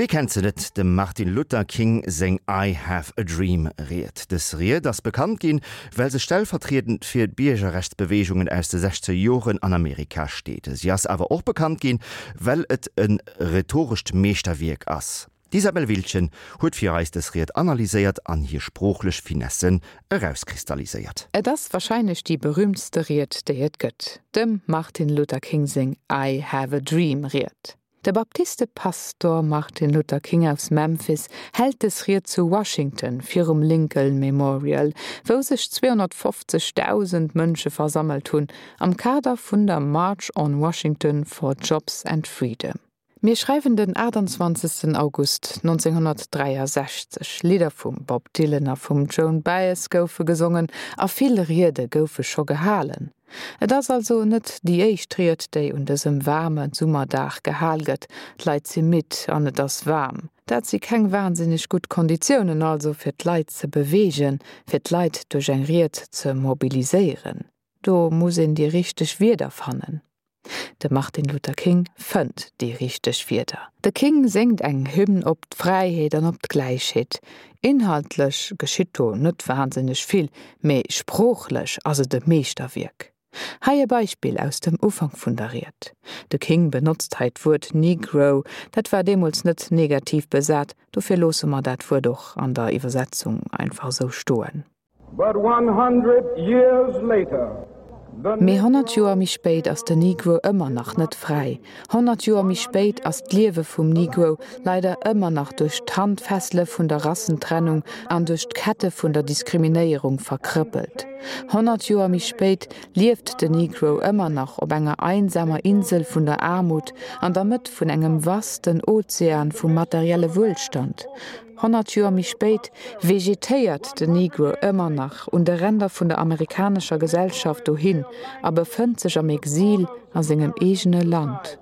Wie kennt se net, dem Martin Luther King seng I have a dream Ried. Dës Ried ass bekannt ginn, well se stellvertriedend fir d'Biergerrechtsbeweegungen aus de sechzeger Joren an Amerika steet. Si ass awer och bekannt ginn, well et e rhetorescht Meeschterwierk ass. D'Isabel Wiltgen huet fir eis dës Ried analyséiert an hir sproochlech Finessen erauskristalliséiert. Et ass warscheinlech déi berüümtste Ried, déi et gëtt, dem Martin Luther King seng I have a dream Ried. De Baptiste-Pastor Martin Luther King aus Memphis hält des Ried zu Washington virum Lincoln Memorial, wou sech 250.000 Mënsche versammelt hunn, am Kader vun der March on Washington for Jobs and Freedom. Mir schreiwen den 28. August 1963. Lidder vum Bob Dylan a vum Joan Baez goufe gesongen a vill Riede goufe scho gehalen. Et ass also net déi éischt Ried, déi un dësem waarme Summerdag gehal gëtt. D'Leit si midd an et ass waarm. Dat si keng wahnsinneg gutt Konditiounen also fir d'Leit ze beweegen, fir d'Leit duerch eng Ried ze mobiliséieren. Do muss een déi richteg Wierder fannen. De Martin Luther King fënnt déi richteg Wierder. De King séngt eng Hymn op d'Fräiheet an op d'Gläichheet. Inhaltlech geschitt do net wahnsinneg vill, mee sproochlech ass et e Meeschterwierk. Hei e Beispill aus dem Ufank vun der Ried. De King benotzt hei d'Wuert Negro, dat war deemools net negativ besat, dofir loosse mer dat Wuert och an der Iwwersetzung einfach esou stoen. But 100 years later, the Mee 100 Joer méi spéit ass den Negro ëmmer nach net fräi. 100 Joer méi spéit ass d'Liewe vum Negro leider ëmmer nach duerch d'Handfessele vun der Rassentrennung an duerch d'Kette vun der Diskriminéierung verkrëppelt. 100 Joer méi spéit lieft den Negro ëmmer nach op enger einsamer Insel vun der Aarmut an der Mëtt vun engem vasten Ozean vum materielle Wuelstand. 100 Joer méi spéit vegetéiert den Negro ëmmer nach un de Ränder vun der amerikanescher Gesellschaft dohin a befënnt sech am Exil a sengem eegene Land.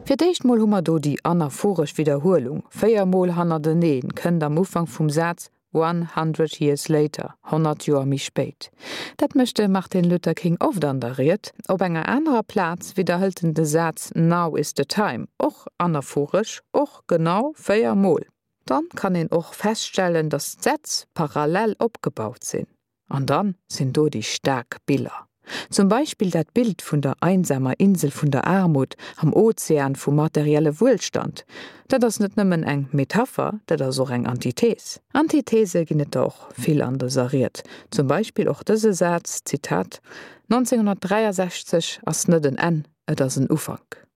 Fir d'éischt mol hu mer do déi anaphoresch Widderhuelung, 4 mol hannerteneen kënnt am Ufank vum Saz 100 years later, 100 Joer méi spéit. Dat mécht de Martin Luther King oft an der Ried. Op enger anerer Plaz widderhëlt en de Saz Now is the time, och anaphoresch, och genau 4 Mol. Dann kann een och feststellen, datt d'Sätz parallel opgebaut sinn. An dann sinn do déi staark Biller. Zum Beispill dat Bild vun der einsamer Insel vun der Aarmut am Ozean vum materielle Wuelstand. Dat ass net nëmmen eng Metapher, dat ass och eng Antithes. Antithese ginn et der och vill an dëser Ried. Zum Beispill och dëse Saz, Zitat, 1963 ass net en Enn, et ass en Ufank.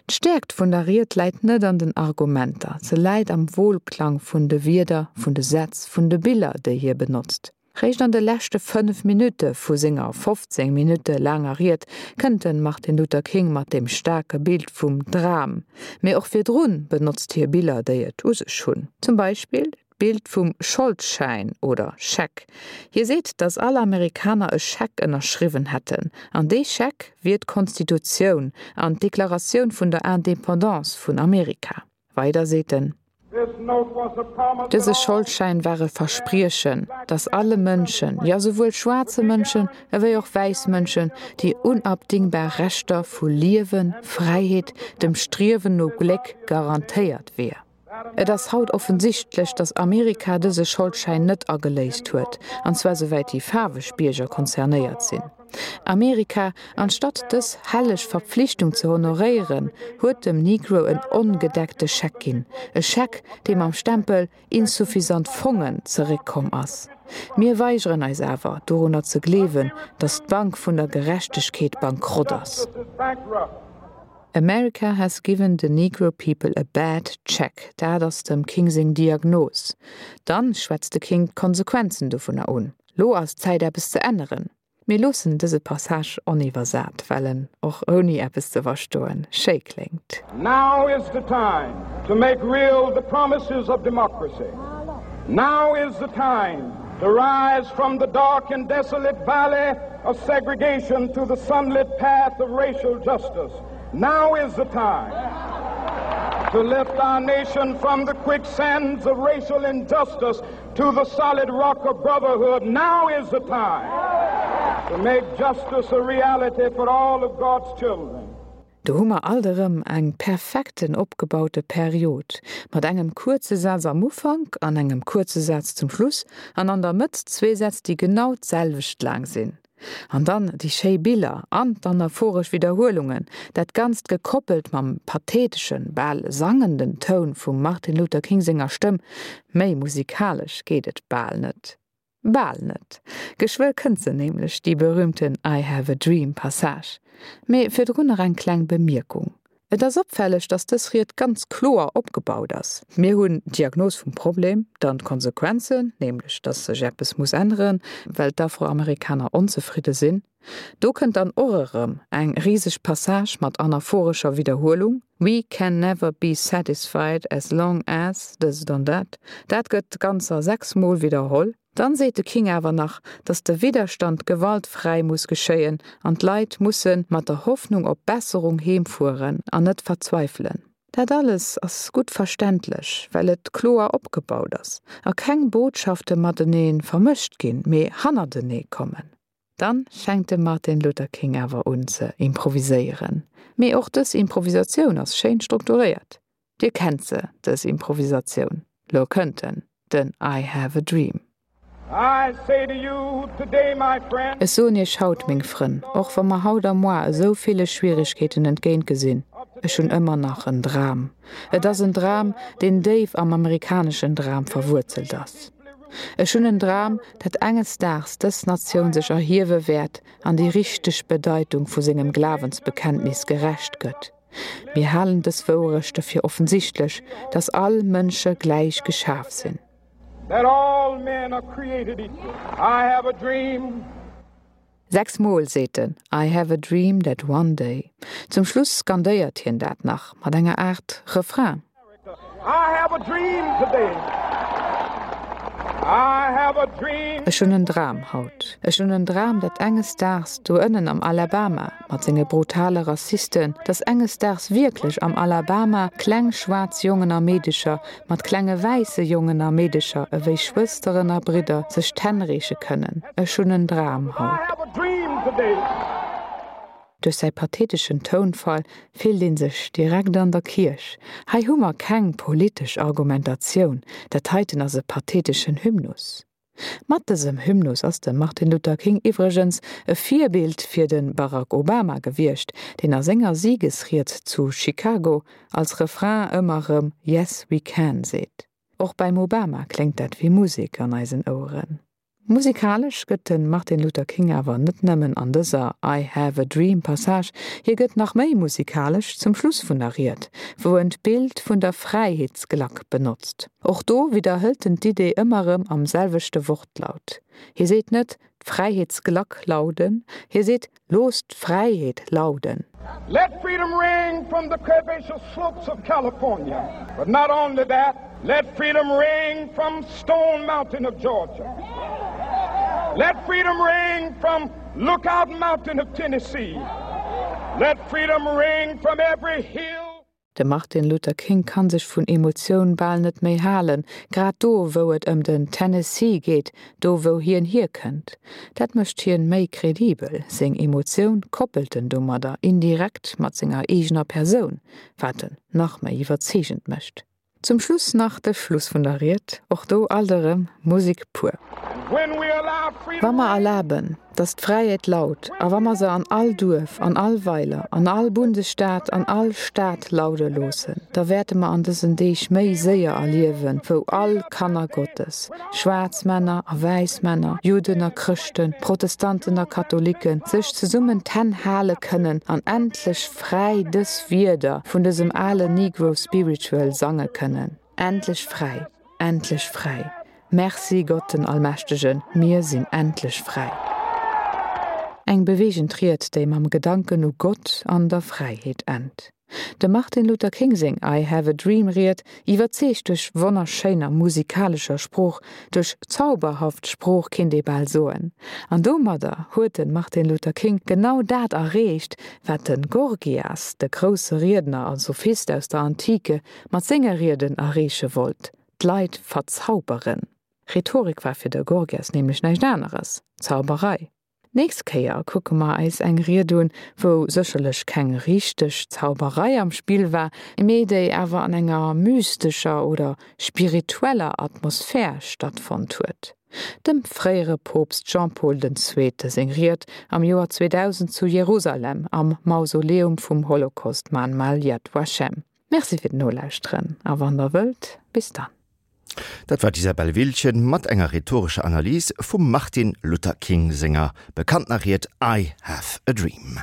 D'Stäerkt vun der Ried läit net an den Argumenter, se läit am Wohlklang vun de Wierder, vun de Sätz, vun de Biller, déi hie benotzt. Réischt an de leschte 5 Minutte vu senger 15 Minutte laanger Ried kënnt de Martin Luther King mat deem staarke Bild vum Dram. Mee och virdrun benotzt hie Biller, déi et u sech hunn. Zum Beispill D'Bild vum Scholdschäin oder Scheck. Hie seet, datt all Amerikaner e Scheck ënnerschriwwen hätten, an dee Scheck wier d'Konstitutioun an d'Deklaratioun vun der Indépendance vun Amerika. Weider seet en. Dëse Scholdschäin war e Verspriechen, datt alle Mënschen, jo souwuel schwaarze Mënschen ewéi och wäiss Mënschen, déi unabdingbar Rechter vu Liewen, Fräiheet, dem Striewen no Gléck garantéiert wier. Et ass haut offensichtlech, datt Amerika dëse Scholdschäin net ageléist huet, an zwar souwäit déi faarweg Bierger concernéiert sinn. Amerika, anstatt dës helleg Verpflichtung ze honoréieren, huet dem Negro en ongedeckte Scheck ginn, e Scheck, dee mam Stempel insuffisant Fongen zeréckkomm ass. Mir weigeren eis awer, dorunner ze gleewen, datt d'Bank vun der Gerechtegkeet bankrott ass. America has given the Negro people a bad check, dat ass dem King seng Diagnos. Dann schwätzt de King d'Konsequenzen dovunner un. Lo ass d'Zäit eppes ze änneren. Mir loossen dëse Passage oniwwersat, well en och ouni eppes ze verstoen schéi kléngt. Now is the time to make real the promises of democracy. Now is the time to rise from the dark and desolate valley of segregation to the sunlit path of racial justice. Now is the time to lift our nation from the quicksands of racial injustice to the solid rock of brotherhood. Now is the time to make justice a reality for all of God's children. Do hu mer alt erëm eng perfekten opgebaute Period, mat engem kuerze Saz am Ufank an engem kuerze Saz zum Schluss an an der Mëtt zwee Sätz, déi genau d'selwecht laang sinn. An dann déi schéi Biller an d'anaphoresch Widderhuelungen, dat Ganzt gekoppelt mam patheteschen, bal sangenden Toun vum Martin Luther King senger Stëmm, méi musikalesch geet et bal net. Bal net. Geschwë kënnt se nämlech, déi berühmten I have a dream Passage. Mee virdrun nach eng kleng Bemierkung. Et ass opfälleg, dass dës Ried ganz kloer opgebaut ass. Mir hunn d'Diagnos vum Problem, dann d'Konsequenzen, nämlech dass sech eppes muss änneren, well d'Afroamerikaner onzefridde sinn. Do kënnt dann och erëm eng riseg Passage mat anaphorescher Widderhuelung, We can never be satisfied as long as dëst an dat. Dat gëtt ganzer 6 mol widderholl. Dann seet de King awer nach, datt de Widderstand gewaltfräi muss geschéien an d'Leit musse mat der Hoffnung op Besserung heemfueren an net verzweifelen. Dat alles ass gutt verständlech, well et kloer opgebaut ass a keng Botschafte matenee vermëscht ginn, mee hannertenee kommen. Dann fänkt de Martin Luther King awer un ze improviséieren. Mee och dës Improvisatioun ass schéin strukturéiert. Dir kennt se, dës Improvisatioun. Lo kënnt en, den I have a dream. Ech soen iech haut, meng Frënn, och wa mer haut a moar esou ville Schwierigkeeten entgéint gesinn, ech hunn ëmmer nach en Dram. Et ass en Dram, deen déif am amerikaneschen Dram verwuerzelt ass. Ech hunn en Dram, dat enges Daags dës Natioun sech erhiewe wäert an déi richteg Bedeitung vu sengem Glawensbekenntnis gerecht gëtt. Mir halen dës Wouerechte fir offensichtlech, dass all Mënsche gläich geschaf sinn. That all men are created equal. I have a dream. 6 Mol seet en I have a dream that one day. Zum Schluss skandéiert hien dat nach mat enger Aart Refrain. I have a dream today. I have a dream. Ech hunn en Dram haut. Ech hunn en Dram, datt enges Daags do ënnen am Alabama, mat senge brutale Rassisten, datt enges Daags wierklech am Alabama kleng schwaarz Jongen a Meedecher mat klenge wäisse Jongen a Meedecher ewéi Schwësteren a Bridder sech d'Hänn reeche kënnen. Ech hunn en Dram haut. Duerch säi patheteschen Tounfall fillt ee sech direkt an der Kierch. Hei hu mer keng politesch Argumentatioun, dat heiten ass e patheteschen Hymnus. Mat dësem Hymnus ass de Martin Luther King iwwregens e Virbild fir de Barack Obama gewiescht, deen a senger Siegesried zu Chicago als Refrain ëmmer rëm Yes, we can seet. Och beim Obama kléngt dat wéi Musek an eisen Oueren. Musikalesch gëtt de Martin Luther King awer net nëmmen an dëser I have a dream Passage, hie gëtt nach méi musikalesch zum Schluss vun der Ried, wou en d'Bild vun der Fräiheetsglack benotzt. Och do widderhëlt en d'Idee ëmmer erëm am selwechte Wortlaut. Hie seet net, D'Fräiheetsglack lauden, hie seet, Loosst d'Fräiheet lauden. Let freedom ring from the curvaceous slopes of California, but not only that, let freedom ring from Stone Mountain of Georgia. Let freedom ring from Lookout Mountain of Tennessee. Let freedom ring from every hill. De Martin Luther King kann sech vun Emotioun bal net méi halen, grad do wou et ëm den Tennessee geet, do wou hien hierkënnt. Dat mécht hien méi kredibel, seng Emotioun koppelt en domadder indirekt mat senger eegener Persoun, wat en nach méi iwwerzeegend mécht. Zum Schluss nach de Schluss vun der Ried, och do alt erëm Musik pur. Wa mer erlaben, datt d'Fräiheet laut, a wa mer se an all Duerf, an all Weiler, an all Bundesstaat, an all Stad laude loossen, da wäerte mer an dësen Deeg méi séier erliewen, wou all Kanner Gottes, schwaarz Männer a wäiss Männer, Judden a Chrëschten, Protestanten a Katholiken, sech zesummen d'Hänn hale kënnen an endlech fräi dës Wierder vun dësem ale Negro Spiritual sange kënnen, Endlech fräi, endlech fräi, merci Gott den Allmächtegen, mir sinn endlech fräi. Eng beweegend Ried, déi mam Gedanken u Gott an der Fräiheet ennt. Dem Martin Luther King seng I Have a Dream Ried iwwerzeegt duerch wonnerschéiner musikalescher Sprooch, duerch zauberhaft Sprooch kinnt ee bal soen. An domadder huet de Martin Luther King genau dat erreecht, wat de Gorgias, de grousse Riedner a Sophist aus der Antike, mat senge Rieden erreeche wollt, d'Leit verzauberen. Rhetorik war fir de Gorgias nämlech näischt aneres, Zauberei. D'nächst Kéier kucke mer eis eng Ried un, wou sécherlech keng richteg Zauberei am Spill war, mee déi awer an enger mystescher oder spiritueller Atmosphär stattfonnt huet. Dem fréiere Poopst Jean-Paul den Zweete seng Ried am Joer 2000 zu Jerusalem am Mausoleum vum Holocaust-Mahnmal Yad Vashem. Merci fir d'Nolauschteren a wann der wëllt, bis dann. Dat war d'Isabelle Wiltgen mat enger rhetorescher Analys vum Martin Luther King senger bekanntener Ried I have a dream.